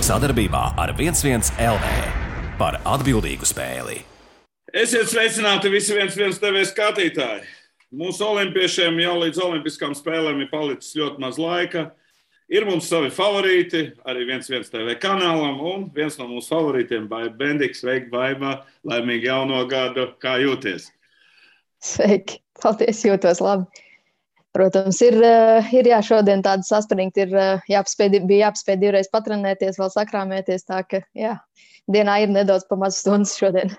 Sadarbībā ar 11 LV par atbildīgu spēli. Esiet sveicināti visi 11 TV skatītāji. Mūsu olimpiešiem jau līdz olimpiskām spēlēm ir palicis ļoti maz laika. Ir mums savi favorīti, arī 11 TV kanālam, un viens no mūsu favorītiem, Baiba Bendiks. Sveiki, Baiba! Laimīgi jauno gadu! Kā jūties? Sveiki! Paldies, jūtos labi. Protams, ir šodien tāda saspringta, bija jāpaspēj divreiz patrenēties, vēl sakrāmēties, tā ka, dienā ir nedaudz pa maz stundas šodien.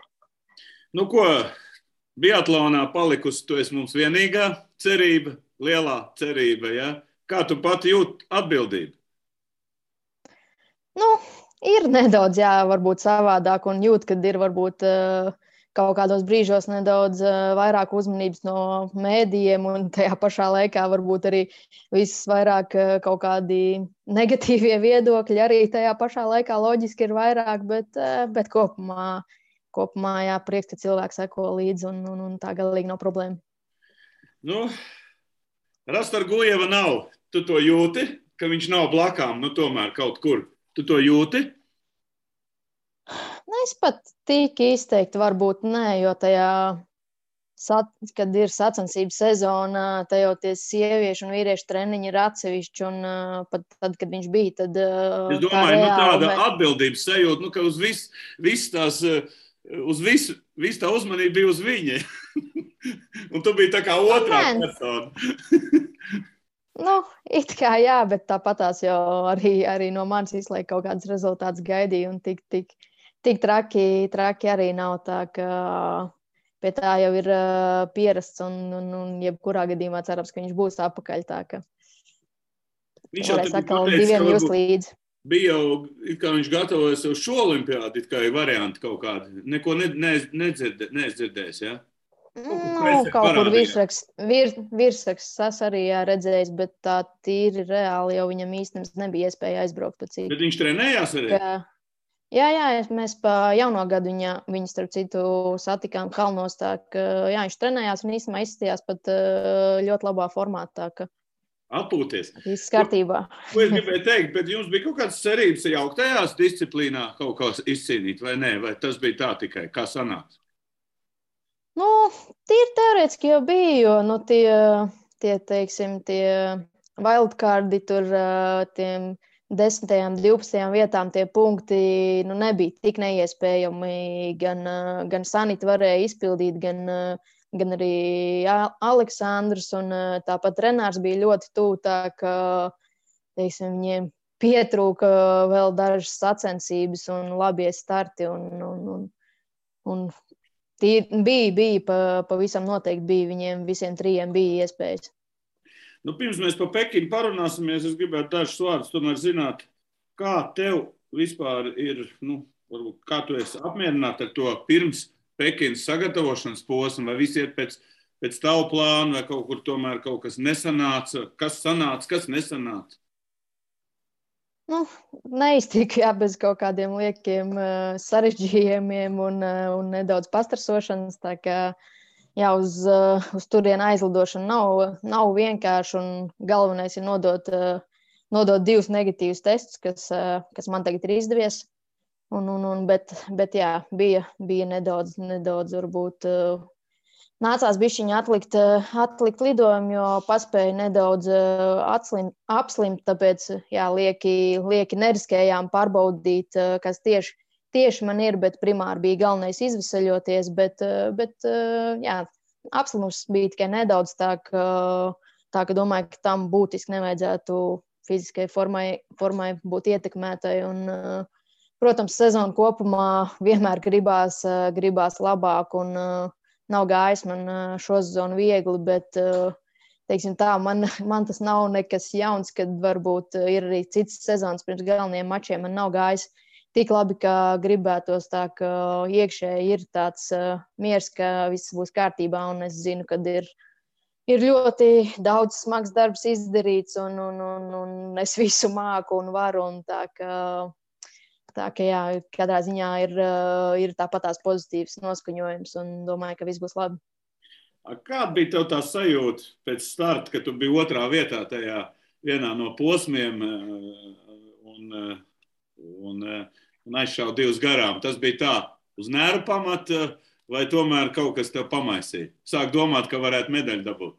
Nu ko, biatlonā palikusi, tu esi mums vienīgā cerība, lielā cerība, ja? Kā tu pati jūti atbildību? Nu, ir nedaudz, varbūt savādāk, un jūt, kad ir varbūt kaut kādos brīžos nedaudz vairāk uzmanības no mēdījiem, un tajā pašā laikā varbūt arī viss vairāk kaut kādi negatīvie viedokļi arī tajā pašā laikā loģiski ir vairāk, bet kopumā, prieks, ka cilvēki seko līdzi, un tā galīgi nav problēma. Nu, Rastargujeva nav. Tu to jūti, ka viņš nav blakām, tomēr kaut kur. Tu to jūti? Es pat tik izteikti varbūt nē, jo tajā, kad ir sacensību sezona, tajā tie sieviešu un vīriešu treniņi ir atsevišķi, un pat tad, kad viņš bija, tad es domāju, tāda atbildības sajūta, ka uz visu tā uzmanība bija uz viņa. Un tu biji tā kā otrā persona. It kā bet tāpatās jau arī no manis izlaik kaut kāds rezultāts gaidīja, un tik traki arī nav, tā ka pie tā jau ir pierasts, un jebkurā gadījumā cerams, ka viņš būs apakaļ, tā ka varēs atkal diviem just līdzi. Bija jau, kā viņš gatavojas uz šo olimpiādu, kā ir varianti kaut kādi. Neko nedzirdējis, ja? Kaut kur virsraksts es arī redzējis, bet tā tīri reāli jau viņam īstenībā nebija iespēja aizbraukt pa citu. Bet viņš trenējās arī? Jā, mēs pa jauno gadu viņu starp citu satikām kalnos, tā ka viņš trenējās un īstenībā izskatījās pat ļoti labā formā, tā ka atpūties. Viss kārtībā. Ko es gribēju teikt, bet jums bija kaut kādas cerības jauktajās disciplīnā kaut kā izcīnīt, vai nē? Vai tas bija tā tikai? Kā sanāks? Tīri teorētiski jau bija, jo tie wildcardi tur tiem 10. 12. vietām tie punkti nebija tik neiespējami. Gan Sanita varēja izpildīt, gan arī Aleksandrs, un tāpat Renārs bija ļoti tuvu, tā ka, viņiem pietrūka vēl dažas sacensības un labie starti, un bija pavisam noteikti bija, viņiem visiem trijiem bija iespējas. Pirms mēs par Pekinu parunāsimies, es gribētu dažus vārdus tomēr zināt, kā tev vispār ir, varbūt kā tu esi apmierināta ar to pirms Pekinas sagatavošanas posmu, vai viss iet pēc tavu plānu, vai kaut kur tomēr kaut kas nesanāca, kas sanāca, kas nesanāca? Neiztika, bez kaut kādiem liekiem sarežģījumiem un nedaudz pastrasošanas, tā kā uz turienu aizlidošanu nav vienkārši, un galvenais ir nodot 2 negatīvus testus, kas man tagad ir izdevies, bet bija nedaudz varbūt nācās bišķiņi atlikt lidojumu, jo paspēju nedaudz apslimt, tāpēc lieki neriskējām pārbaudīt, kas tieši man ir, bet primāri bija galvenais izveseļoties, bet apslimums bija tikai nedaudz, tā ka domāju, ka tam būtiski nevajadzētu fiziskai formai būt ietekmētai, un, protams, sezonu kopumā vienmēr gribās labāk, un nav gājis man šo sezonu viegli, bet, teiksim tā, man tas nav nekas jauns, kad varbūt ir arī cits sezonas pirms galvenajiem mačiem, man nav gājis tik labi, kā gribētos, tā ka iekšēji ir tāds miers, ka viss būs kārtībā, un es zinu, kad ir ļoti daudz smags darbs izdarīts, un es visu māku un varu, un tā ka katrā ziņā ir tāpat tās pozitīvs noskaņojums, un domāju, ka viss būs labi. Kāda bija tev tā sajūta pēc starta, kad tu biji otrā vietā tajā vienā no posmiem, un un aizšāva 2 garām. Tas bija tā uz nervu pamata, vai tomēr kaut kas tev pamaisīja? Sāk domāt, ka varētu medaļu dabūt.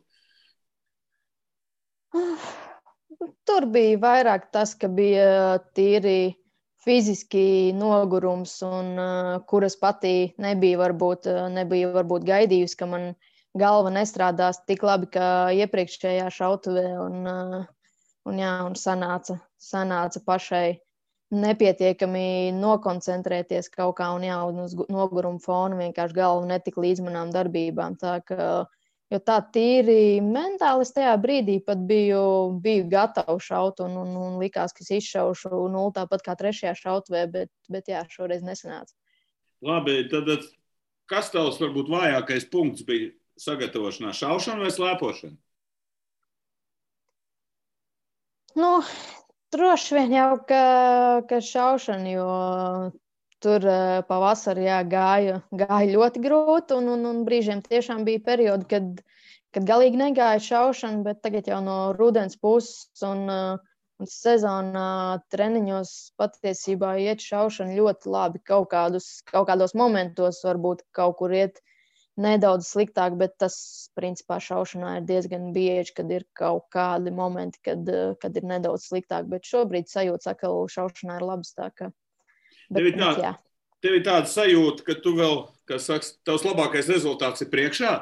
Tur bija vairāk tas, ka bija tīri fiziski nogurums, un kuras patī nebija varbūt gaidījusi, ka man galva nestrādās tik labi, kā iepriekšējā šautuvē, un sanāca pašai nepietiekami nokoncentrēties kaut kā, un uz noguruma fona vienkārši galva netika līdz manām darbībām. Jo tā tīri mentāli es tajā brīdī pat biju gatava šaut, un likās, ka es izšaušu 0 tāpat kā 3. šautuvē, bet jā, šoreiz nesanāca. Labi, tad kas tavs varbūt vājākais punkts bija sagatavošanā? Šaušana vai slēpošana? Droši vien jau, ka šaušana, jo tur pavasarī gāja ļoti grūti, un brīžiem tiešām bija periodi, kad galīgi negāja šaušana, bet tagad jau no rudens puses un sezonā treniņos patiesībā iet šaušana ļoti labi. Kaut kādos momentos varbūt kaut kur iet nedaudz sliktāk, bet tas, principā, šaušanā ir diezgan bieži, kad ir kaut kādi momenti, kad ir nedaudz sliktāk, bet šobrīd sajūta saka, ka šaušanā ir labs, tā ka. Tev ir tāda sajūta, ka tu vēl, kā saka, tavs labākais rezultāts ir priekšā?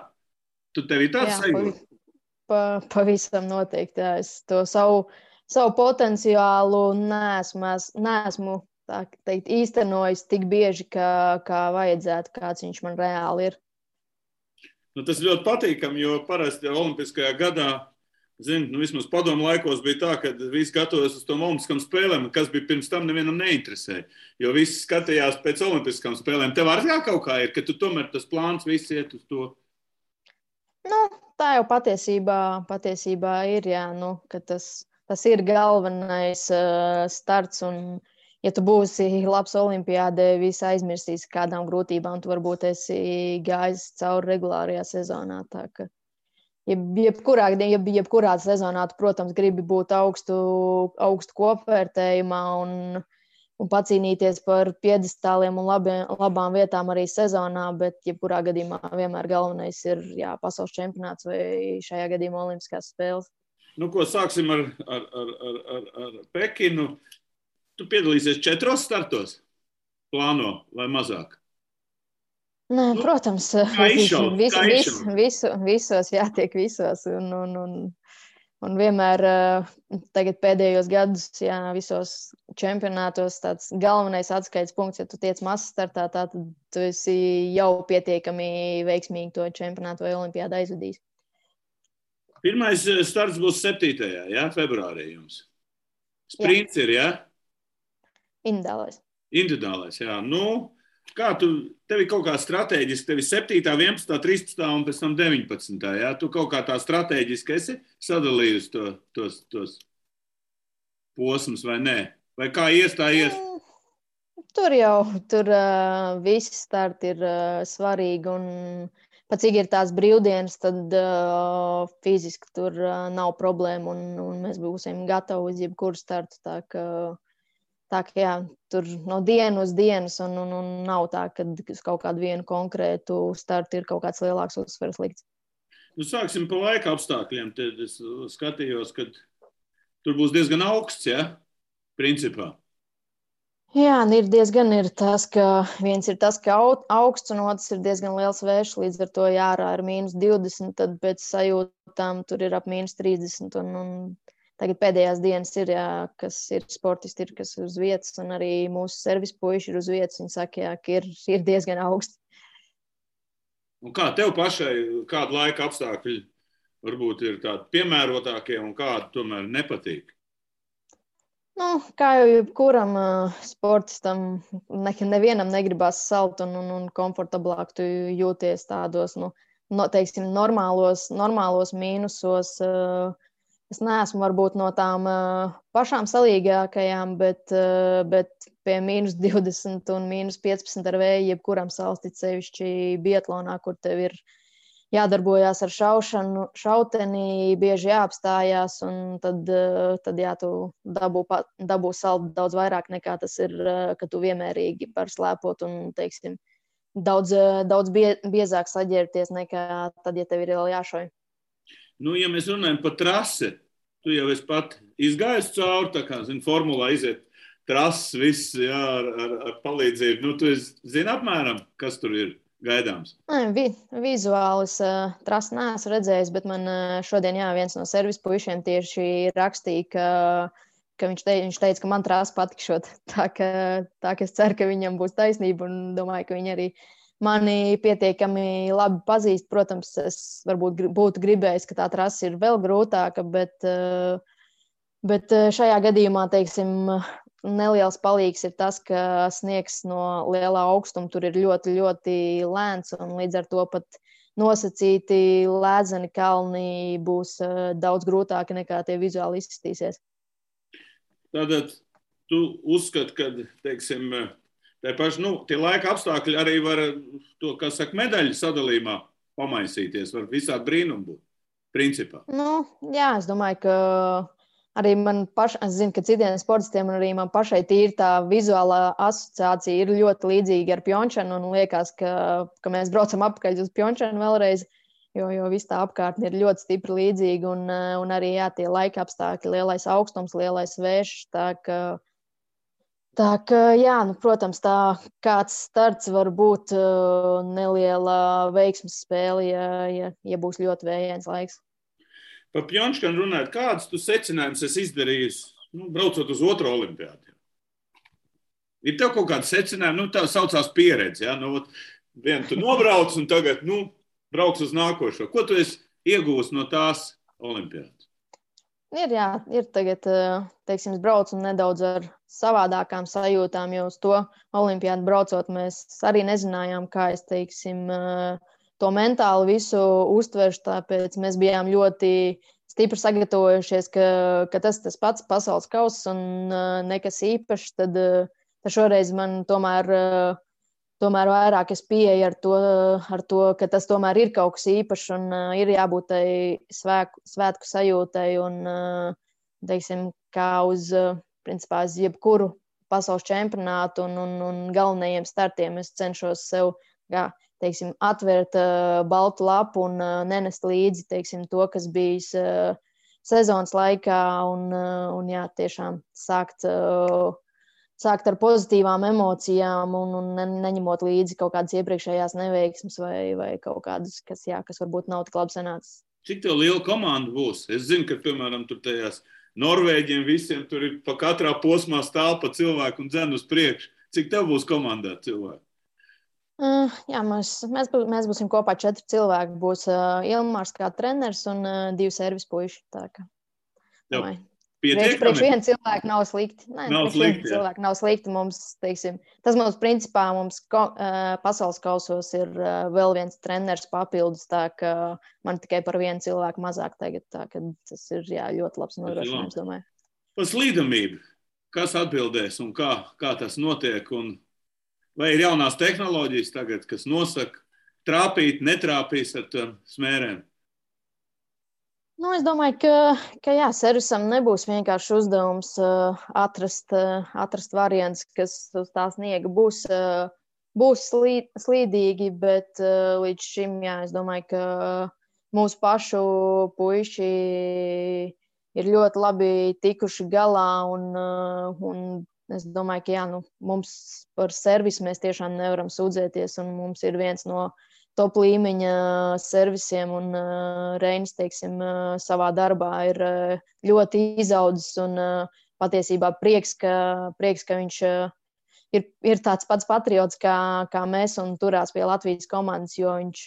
Tev ir tāda sajūta? Pavisam noteikti. Jā. Es to savu potenciālu neesmu tā teikt, īstenojis tik bieži, kā vajadzētu, kāds viņš man reāli ir. Tas ļoti patīkami, jo parasti olimpiskajā gadā, vismaz padomu laikos bija tā, ka visi gatavojas uz tom olimpiskām spēlēm, kas bija pirms tam nevienam neinteresēja, jo visi skatījās pēc olimpiskām spēlēm. Tev arī kaut kā ir, ka tu tomēr tas plāns viss iet uz to? Tā jau patiesībā ir, jā, ka tas ir galvenais starts, un ja tu būsi labs olimpiādē, visi aizmirsīs kādām grūtībām, tu varbūt esi gājis cauri regulārajā sezonā. Tā ka jebkurā sezonā tu, protams, gribi būt augstu kopvērtējumā un pacīnīties par piedestāliem un labām vietām arī sezonā, bet jebkurā gadījumā vienmēr galvenais ir pasaules čempionāts vai šajā gadījumā olimpiskās spēles. Ko sāksim ar Pekinu. Tu piedalīsies 4 startos? Plāno vai mazāk? Nē, protams, visos jātiek visos. Un vienmēr tagad pēdējos gadus, visos čempionātos tāds galvenais atskaites punkts, ja tu tiec mazs startā, tad tu esi jau pietiekami veiksmīgi to čempionātu vai olimpiādu aizvadījis. Pirmais starts būs 7. Februārī jums. Sprints ir, jā? Individuālais, jā. Kā tev ir kaut kā strateģiski, tev ir 7., 11., 13. un pēc tam 19. Jā? Tu kaut kā tā strateģiski esi sadalījusi tos posmus vai nē? Vai kā ies, tā ies? Tur visi starti ir svarīgi, un pat cik ir tās brīvdienas, tad fiziski tur nav problēma, un mēs būsim gatavi uz jebkuru startu. Tā ka jā, tur no dienas uz dienas, un nav tā, ka uz kaut kādu vienu konkrētu startu ir kaut kāds lielāks uzsvars likts. Sāksim pa laika apstākļiem. Tad es skatījos, ka tur būs diezgan augsts, principā. Jā, ir tas, ka viens ir tas, ka augsts, un otrs ir diezgan liels vējš, līdz ar to ārā ir -20, tad pēc sajūtām tur ir ap -30, un tagad pēdējās dienas ir, kas ir sportisti, kas ir uz vietas, un arī mūsu servis puiši ir uz vietas. Viņi saka, ka ir diezgan augsti. Un kā tev pašai, kāda laika apstākļi varbūt ir tādi piemērotākie un kādi tomēr nepatīk? Kā jau jebkuram sportistam, nevienam negribas salt un komfortablāk tu jūties tādos, teiksim, normālos mīnusos. Es neesmu varbūt no tām pašām salīgākajām, bet pie -20 un -15 ar vēju jebkuram salstit, sevišķi biatlonā, kur tev ir jādarbojās ar šauteni, bieži jāapstājās, un tad jā, tu dabū saldu daudz vairāk nekā tas ir, ka tu vienmērīgi var slēpot un, teiksim, daudz biezāk saģērties nekā tad, ja tev ir vēl jāšauj. Nu, ja mēs runājam par trasi, tu jau esi pat izgājis cauri, tā kā, formulā iziet trases, viss, jā, ar palīdzību. Nu, tu zini apmēram, kas tur ir gaidāms? Vizuāli es trasi neesmu redzējis, bet man šodien, jā, viens no servis puišiem tieši rakstīja, ka viņš teica, ka man trasi patikšot. Tā ka es ceru, ka viņam būs taisnība un domāju, ka viņi arī mani pietiekami labi pazīst. Protams, es varbūt būtu gribējis, ka tā trasa ir vēl grūtāka, bet šajā gadījumā, teiksim, neliels palīgs ir tas, ka sniegs no lielā augstuma tur ir ļoti, ļoti lēns, un līdz ar to pat nosacīti lēdzeni kalni būs daudz grūtāki nekā tie vizuāli izskatīsies. Tātad tu uzskati, ka, teiksim, tie laika apstākļi arī var to, kā saka, medaļu sadalījumā pamaisīties, var visādi brīnumi būt, principā. Nu, jā, es domāju, ka arī es zinu, ka citiem sportistiem un arī man pašai tīri tā vizuālā asociācija ir ļoti līdzīga ar Pjončanu, un liekas, ka mēs braucam apakaļ uz Pjončanu vēlreiz, jo viss tā apkārtne ir ļoti stipri līdzīga, un arī, jā, tie laika apstākļi, lielais augstums, lielais vējš, tā ka, jā, nu, protams, tā kāds starts var būt neliela veiksmes spēle, ja būs ļoti vējains laiks. Par Pjončanu runājot, kādas tu secinājumus esi izdarījis, braucot uz otro olimpiādu? Ir tev kaut kāda secinājuma, tā saucās pieredze, ja? Vienu tu nobrauc un tagad, brauc uz nākošo. Ko tu esi iegūst no tās olimpiādas? Ir tagad, teiksim, es braucu nedaudz ar savādākām sajūtām, jo uz to olimpiādu braucot mēs arī nezinājām, kā es, teiksim, to mentāli visu uztveršu, tāpēc mēs bijām ļoti stipri sagatavojušies, ka tas pats pasaules kauss un nekas īpašs, tad šoreiz man tomēr vairāk es pieeju ar to, ka tas tomēr ir kaut kas īpašs un ir jābūt tai svētku sajūtai un, teiksim, kā uz jebkuru pasaules čempionātu un galvenajiem startiem es cenšos sev, teiksim, atvērt baltu lapu un nenest līdzi, teiksim, to, kas bijis sezonas laikā un jā, tiešām sākt ar pozitīvām emocijām un neņemot līdzi kaut kādas iepriekšējās neveiksmes vai kaut kādas, kas varbūt nav tik labi sanācis. Cik tev liela komanda būs? Es zinu, ka, piemēram, tur tajās Norvēģiem visiem tur ir pa katrā posmā stāv pa cilvēku un dzen uz priekšu. Cik tev būs komandā cilvēki? Jā, mēs būsim kopā 4 cilvēki. Būs Ilmārs kā treneris un 2 servis puiši. Priekš viena cilvēka nav slikti. Cilvēki nav slikti. Mums, teiksim, tas principā mums pasaules kausos ir vēl viens treneris papildus, tā ka man tikai par vienu cilvēku mazāk tagad. Tā ka tas ir ļoti labs nodrošinājums, domāju. Par slīdamību. Kas atbildēs un kā tas notiek? Vai ir jaunās tehnoloģijas tagad, kas nosaka trāpīt, netrāpīs ar tām smērēm? Es domāju, ka jā, servisam nebūs vienkārši uzdevums atrast variants, kas uz tā sniega būs slīdīgi, bet līdz šim, jā, es domāju, ka mūsu pašu puiši ir ļoti labi tikuši galā un es domāju, ka jā, mums par servisu mēs tiešām nevaram sūdzēties, un mums ir viens no top līmeņa servisiem, un Reinis, teiksim, savā darbā ir ļoti izaudzis, un patiesībā prieks, ka viņš ir tāds pats patriots kā mēs, un turās pie Latvijas komandas, jo viņš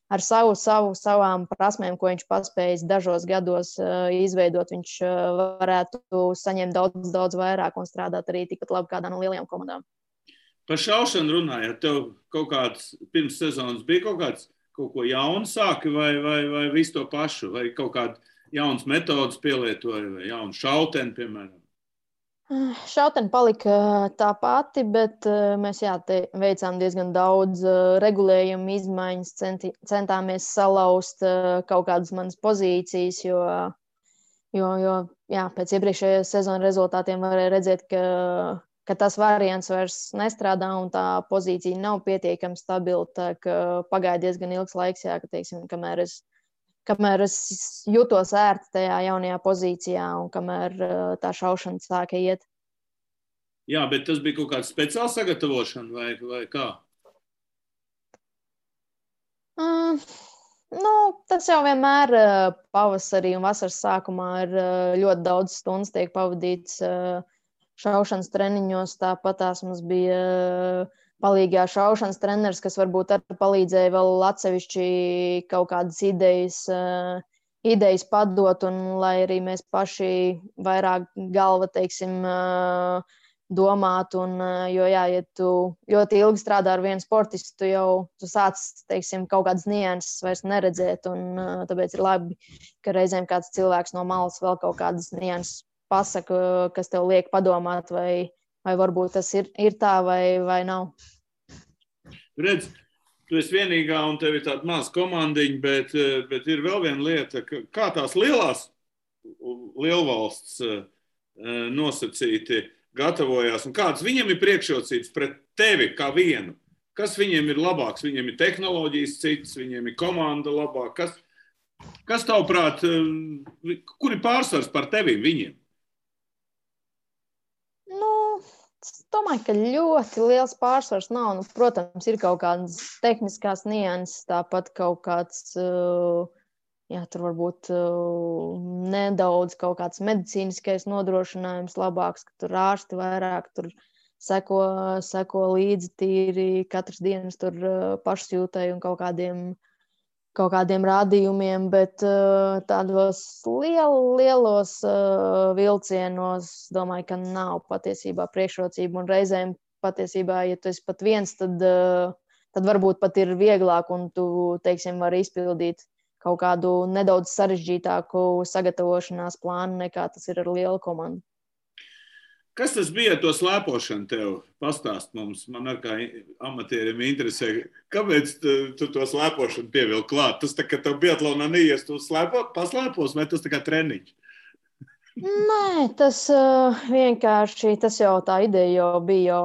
ar savām prasmēm, ko viņš paspējis dažos gados izveidot, viņš varētu saņemt daudz vairāk un strādāt arī tikpat labi kādā no lielajām komandām. Par šaušanu runājot, tev kaut kāds pirms sezonas bija kaut ko jaunu sāki vai visu to pašu, vai kaut kādu jaunas metodas pielietoja, vai jaunu šauteni, piemēram? Šautene palika tā pati, bet mēs veicām diezgan daudz regulējumu izmaiņas, centāmies salauzt kaut kādas manas pozīcijas, jo pēc iepriekšējās sezonas rezultātiem varēja redzēt, ka tas variants vairs nestrādā un tā pozīcija nav pietiekami stabila. Tā ka pagāja diezgan ilgs laiks, ka, teiksim, kamēr es jutos ērti tajā jaunajā pozīcijā un kamēr tā šaušana sāka iet. Jā, bet tas bija kaut kāda speciāla sagatavošana vai kā? Tas jau vienmēr pavasarī un vasaras sākumā ir ļoti daudz stundas tiek pavadīts šaušanas treniņos. Tāpat mums bija palīgā šaušanas treneris, kas varbūt arī palīdzēja vēl atsevišķi kaut kādas idejas padot, un lai arī mēs paši vairāk galva, teiksim, domāt, jo, ja tu ļoti ilgi strādā ar vienu sportistu, tu sāc, teiksim, kaut kādas nianses vairs neredzēt, un tāpēc ir labi, ka reizēm kāds cilvēks no malas vēl kaut kādas nianses pasaka, kas tev liek padomāt, vai varbūt tas ir tā vai nav. Redz, tu esi vienīgā un tev ir tāda maza komandiņa, bet ir vēl viena lieta, kā tās lielvalsts nosacīti gatavojās un kādas viņiem ir priekšrocības pret tevi kā vienu? Kas viņiem ir labāks? Viņiem ir tehnoloģijas cits, viņiem ir komanda labāk. Kas tavuprāt, kur ir pārsvars par tevi viņiem? Es domāju, ka ļoti liels pārsvars nav. Protams, ir kaut kādas tehniskās nianses, tāpat kaut kāds, tur varbūt nedaudz kaut kāds medicīniskais nodrošinājums labāks, ka tur ārsti vairāk tur seko līdzi tīri katras dienas tur pašsjūtai un kaut kādiem rādījumiem, bet tādos lielos vilcienos domāju, ka nav patiesībā priekšrocība. Un reizēm patiesībā, ja tu esi pat viens, tad varbūt pat ir vieglāk un tu, teiksim, vari izpildīt kaut kādu nedaudz sarežģītāku sagatavošanās plānu, nekā tas ir ar lielu komandu. Kas tas bija ar to slēpošanu tev? Pastāst mums, man ar kā amatieriem interesē, kāpēc tu to slēpošanu pievilki klāt? Tas tā, ka tev biatlonā neies, tu paslēpos, vai tas tā kā treniņš? Nē, tas vienkārši, tas jau tā ideja jau bija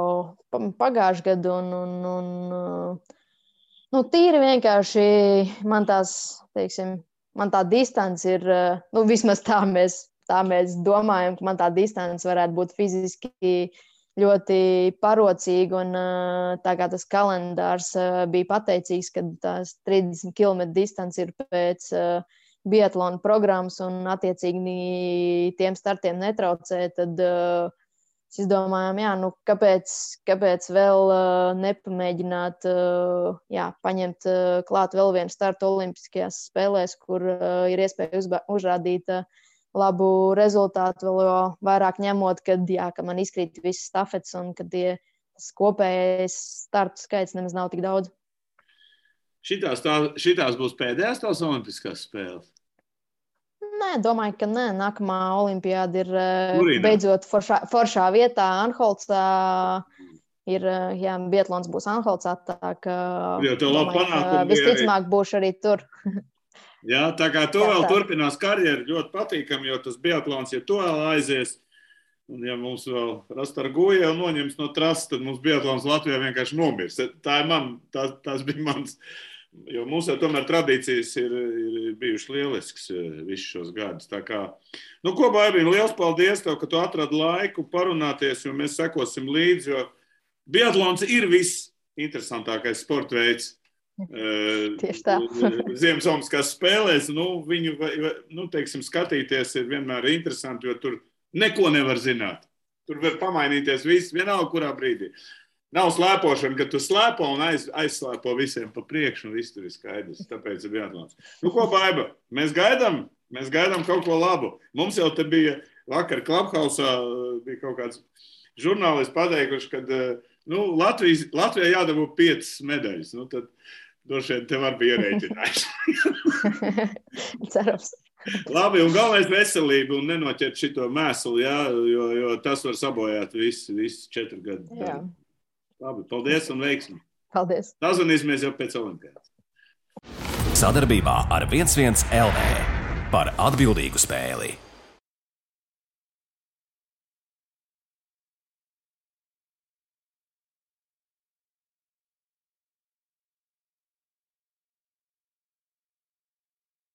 pagājuši gadu un tīri vienkārši man tā distance ir, vismaz tā mēs domājam, ka man tā distance varētu būt fiziski ļoti parocīga, un tā kā tas kalendārs bija pateicīgs, ka tās 30 km distance ir pēc biatlona programmas un attiecīgi tiem startiem netraucē, tad es domāju, kāpēc vēl nepamēģināt paņemt klāt vēl vienu startu olimpiskajās spēlēs, kur ir iespēja uzrādīt labu rezultātu, vēl vairāk ņemot, ka man izkrīt visas stafetes un ka tas kopējais startu skaits nemaz nav tik daudz. Šitās būs pēdējās tās olimpiskās spēles? Nē, domāju, ka nē. Nākamā olimpiāda ir beidzot foršā vietā Anholcā. Biatlons būs Anholcā, tā ka visticamāk būšu arī tur. Jā, tā kā tu vēl turpinās karjeru, ļoti patīkami, jo tas biatlons, ja tu vēl aizies, un ja mums vēl Rastarguja noņems no trases, tad mums biatlons Latvijā vienkārši nomirs. Tas bija mans, jo mums jau tomēr tradīcijas ir bijušas lielisks visus šos gadus. Tā kā, ko Baibiņ, liels paldies tev, ka tu atradi laiku parunāties, jo mēs sekosim līdzi, jo biatlons ir viss interesantākais sporta veids. Tieši tā. Ziemassvētku spēlēs, viņu, teiksim, skatīties ir vienmēr interesanti, jo tur neko nevar zināt. Tur var pamainīties viss, vienalga kurā brīdī. Nav slēpošana, ka tu slēpo un aizslēpo visiem pa priekšu, un viss tur ir skaidrs. Tāpēc ir biatlons. Ko, Baiba? Mēs gaidām kaut ko labu. Mums jau te bija vakar Clubhouse-ā bija kaut kāds žurnālists pateikuši, kad Latvijai jādabū 5 medaļas. Tad droši vien te var bija ierēķinājis. Cerams. Labi, un galvenais veselība un nenoķert šito mēslu, jā, jo tas var sabojāt visu 4 gadu. Jā. Labi, paldies un veiksmi. Paldies. Sazvanīsimies jau pēc Olimpiādas. Sadarbībā ar 11 LV par atbildīgu spēli.